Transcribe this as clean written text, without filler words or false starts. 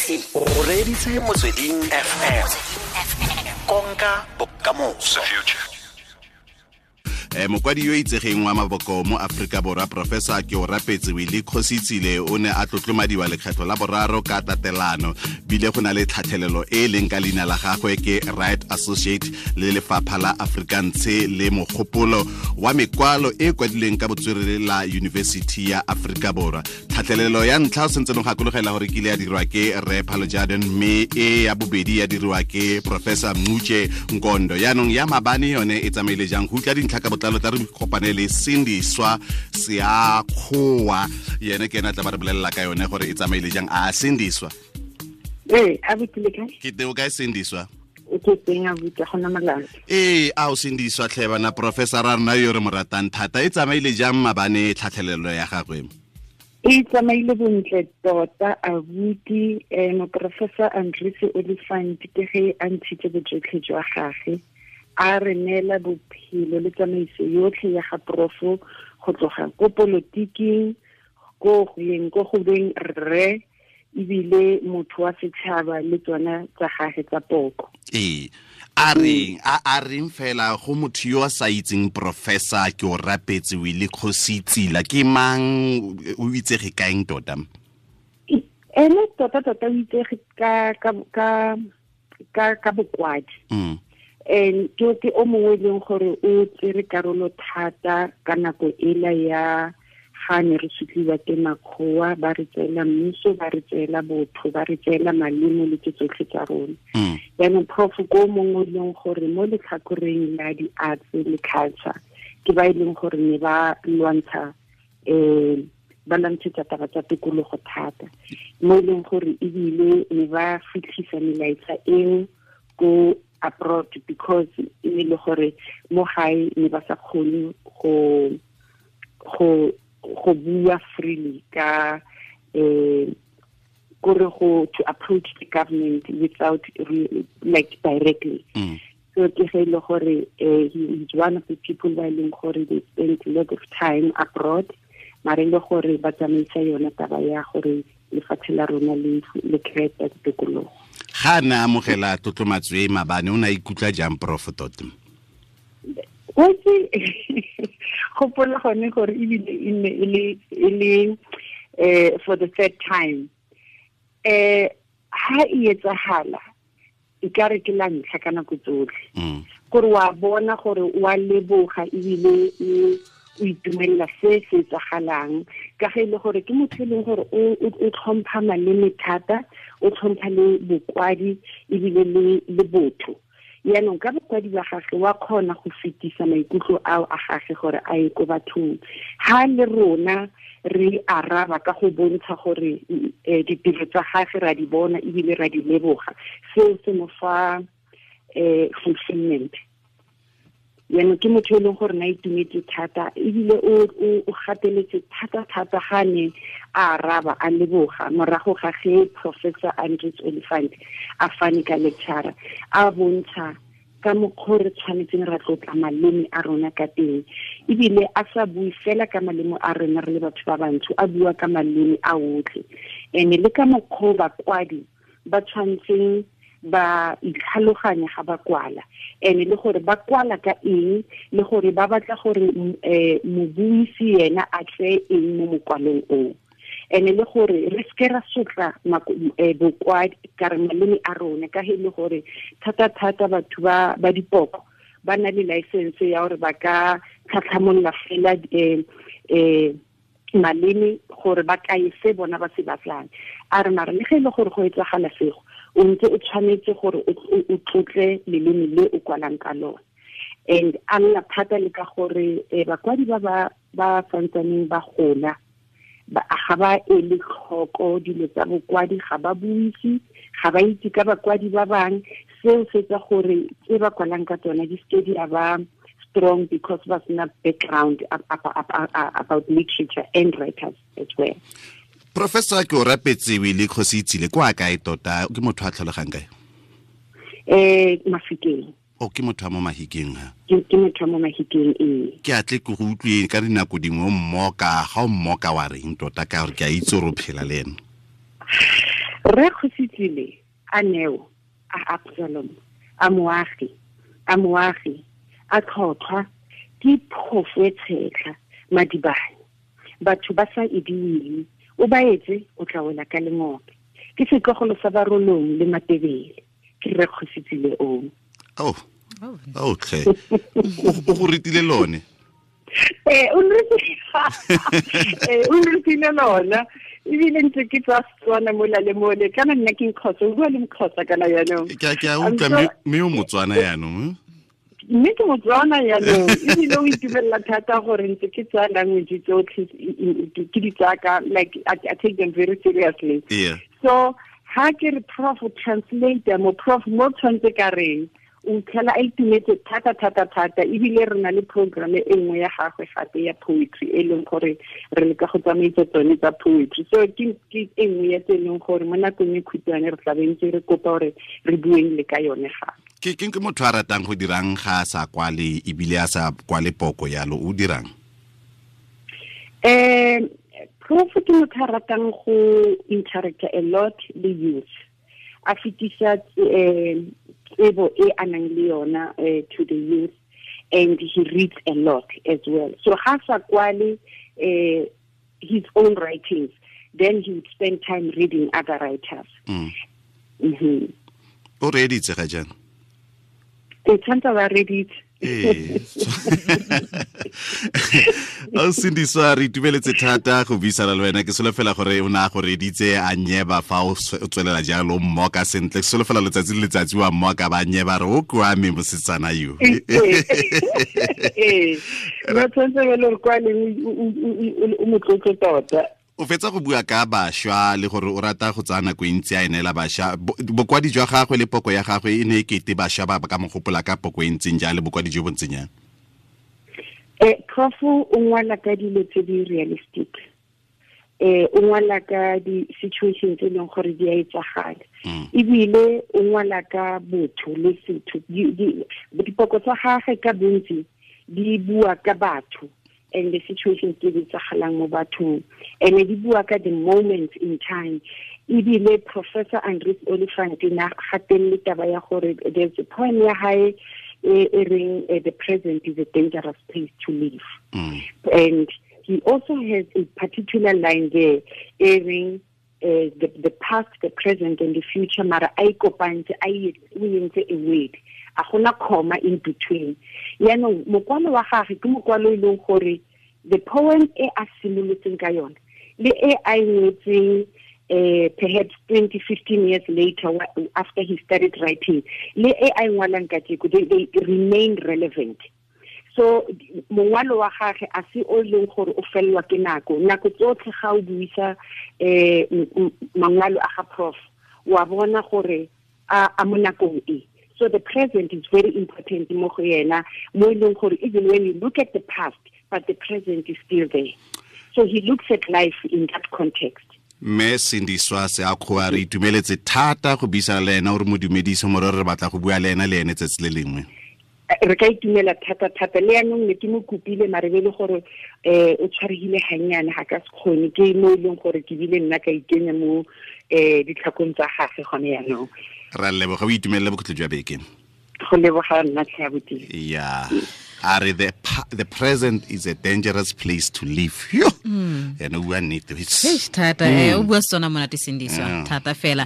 O reditse Motsweding FM, konka bokamoso. Mokwadi yo itsegeng wa maboko mo Aforika Borwa, Professor Keorapetse Willie Kgositsile, o ne a tlotlomadiwa lekgetlho la boraro ka tatelano. Bile go na le tlhatlhelelo e e leng ka leina la gagwe ke Right Associate le Lefapha la Afrikaanse le Mogopolo wa Mekwalo e kwadilweng ka botswerere la University ya Aforika Borwa. Tlhatlhelelo ya ntlha o sentse no gakologela gore kile ya dirwa ke Rre Phalo Jaden, mme e ya bobedi ya dirwa ke Professor Mmuche Nkondo. Yaanong ya mabane yone e tsamaile jang? Go utlwa dintlha ka botlalo, tla re kopane le Sindiswa Seakgowa, yene ke ena tla ba re bolelela ka yone gore e tsamaile jang. A Sindiswa? Ee, abuti, le kae? Ke teo kae, Sindiswa? O ke teng, abuti, gona molato. Ee, a o Sindiswa tlhe bana, professor a rona yo re mo ratang thata, e tsamaile jang mabane tlhatlhelelo ya gagwe? E tsamaile bontle tota, abuti. Moprofessor Andries Oliphant ke ge a ntshitse bojotlhe jwa gage, a re neela bophelo le tsamaiso yotlhe ya ga profo, go tloga ko politiking, ko go yeng ko go beng rre, ebile motho wa setšhaba le tsona tsa gage tsa poko. Ee, a reng a reng fela go motho yo a sa itseng Professor Keorapetse Willie Kgositsile, ke mang, o itsege kaeng tota? Ene tota tota o itsege ka bokwadi. And ke o mongwe e leng gore o tsere karolo thata ka nako ela ya ga ne re sutliwa ke makgowa, ba re tseela mmuso, ba re tseela botho, ba re tseela malemo le tse tsotlhe tsa rona. Jaanong prof ko mongwe e leng gore mo letlhakoreng la di-arts le culture ke ba e leng gore ne ba lwantsha, ba lwantshetsa taba tsa tikologo thata, mo e leng gore ebile ne ba fitlhisa melaetsa eo ko abroad, because e ne le gore mo gae ne ba sa kgone go bua freely ka kore go to approach the government without like directly. So ke ge ile gore he is one of the people ba e leng gore they spent a lot of time abroad, mare le gore ba tsamaisa yona taba ya gore lefatshe la rona le kry-e tikologo. Ga a ne a amogela tlotlomatso e mabane, o ne a ikutlwa jang, prof, tota? Otse gopola gone gore ebile e nne e le for the third time. Ha e etsahala e ka re ke la ntlha ka nako tsotlhe, gore wa bona gore wa leboga ebile o itumelela se se etsagalang, ka ge e le gore ke motho e leng gore o tlhompha maleme thata, o tlhompha le bokwadi ebile le botho. Yaanong ka bokwadi ba gage wa kgona go fetisa maikutlo ao a gage gore a ye ko bathong. Ha le rona re araba ka go bontsha gore ditiro tsa gage ra di bona ebile ra di leboga, seo se mo fa fulfillment. Yaanong ke motho e leng gore na itumetse thata, ebile o gateletse thata-thata ga ne a araba a leboga morago ga ge Professor Andries Oliphant a fane ka lecture, a bontsha ka mokgwa re tshwanetseng ra tlotla maleme a rona ka teng, ebile a sa bue fela ka maleme a rona re le batho ba bantsho, a bua ka maleme a otlhe, and le ka mokgwa bakwadi ba tshwanetseng ba itlhaloganya ga ba kwala, and le gore ba kwala ka eng, le gore ba batla gore mobuisi yena a tseye eng mo mokwalong oo, and le gore re seke ra sotla bokwadi ka re maleme a rona, ka he le gore thata-thata batho ba dipoko ba na le license ya gore ba ka tlhatlhamolola fela maleme gore ba kae se bona ba se batlang. A re mara le ge e le gore go etsagala sego, o ntse o tshwanetse gore o tlotle leleme le o kwalang ka lone. And a lla thata le ka gore bakwadi ba santsaneng ba gola ga ba ele tlhoko dilo tsa bokwadi, ga ba buise, ga ba itse ka bakwadi ba bang. Seo se etsa gore tse ba kwalang ka tsona di seke di a ba strong, because ba sena background about literature and writers as well. Professor Keorapetse Willie Kgositsile kwa kae tota? Ke motho a tlholegang kae? Mafikeng. O ke motho wa mo Mahikeng ha? Ke motho wa mo Mahikeng, ee. Ke atle ke go utlwe ka dinako dingwe o mmoka, ga o mmoka wa reng tota, ka gore ke a itse gore o phela le ene? Rre Kgositsile a neo a Absalom a moagi a tlhotlhwa ke phofo e tshetlha madibane batho ba sa ediwile o ba etse o tla wela ka lengope ke setlogolo sa Barolong le Matebele ke Rre Kgositsile o. Oh tlhe o go ritile lone. O nretile lona ebile ntse ke tswa Setswana mola le mole kana nna ke Mxhosa, o bua le Mxhosa kana yaanong. Ke a utlwa mme o Motswana yaanong. Mme ke Motswana yaanong ebile o itumelela thata gore ntse ke tsaya language tsotlhe ke di tsaya ka like I take them very seriously. Yeah. So ha ke re prof translator mo prof mo tshwanetse ka reng o tlhela a itumetse thata thata thata ebile re na le program e nngwe ya gagwe gape ya poetry e leng gore re leka go tsamaisa tsone tsa poetry. So ke e nngwe ya tse e leng gore mo nakong e khutshwane re tla be ntse re kopa gore re bueng le ka yone gape. Ke motho a ratang go dirang ga a sa kwale ebile a sa kwale poko yalo o dirang? Prof ke motho a ratang go interacta a lot le youth, a fetisa tsebo e a nang le yona to the youth, and he reads a lot as well. So ha sa kwale his own writings, then he would spend time reading other writers. O reeditse ga jang? E tshwanetse ba reeditse. Ee. O Sindiswa, re itumeletse thata go buisana le wena. Ke solofela gore o ne a go reeditse a nyeba fa o tswelela jalo mmoka sentle. Ke solofela letsatsi le letsatsi wa mmoka ba nyeba re o kwame mosetsana yo. Ee. No tshwanetse ba le gore kwa leng o motlotlo tota. O fetsa go bua ka bašwa le gore o rata go tsaya nako e ntsi a e neela bašwa. Bokwadi jwa gagwe le poko ya gagwe e ne e kete bašwa ba ka mo gopola ka poko e ntseng jang le bokwadi jo bo ntseng jang? Prof o ngwala ka dilo tse di realistic. O ngwala ka di-situation tse e leng gore di a etsagala. Ebile o ngwala ka botho le setho. Dipoko tsa gagwe ka bontsi di bua ka batho and the situations tse di etsagalang mo bathong, and di bua ka the moments in time. Ebile Professor Andries Oliphant na gatelele taba ya gore there's a poem ya hae e reng the present is a dangerous place to live. And he also has a particular line there e reng the past, the present and the future mara a ikopantse a o entse a word, a gona comma in between. Yaanong mokwalo wa gagwe ke mokwalo e leng gore the poem e a simolotseng ka yone le e a e ngwetseng perhaps 20, 15 years later after he started writing le e a e ngwalang kajeko, they remain relevant. So mongwalo wa gagwe a se o leng gore o fellwa ke nako. Nako tsotlhe ga o buisa mangwalo a ga prof wa bona gore a mo nakong e. So the present is very important mo go yena, mo e leng gore even when you look at the past, but the present is still there. So he looks at life in that context. Mme Sindiswa Seakgoa, re itumeletse thata go buisana le ena, o re mo dumedise more re batla go bua le ena le ene tsatsi le lengwe. Re ka itumela thata thata le yanong ne ke mo kopile mare be le gore o tshwaregile gannyane ga ka se kgone, ke mo e leng gore ke bile nna ka ikenya mo ditlhakong tsa gagwe gone yanong. Ra leboga, o itumelele bokhutlo jwa beke. Go leboga nna tlhe abuti. Yeah. Are the present is a dangerous place to live. Yo. Ene o bua nnete. Thata o bua Setswana monate Sindiswa thata fela.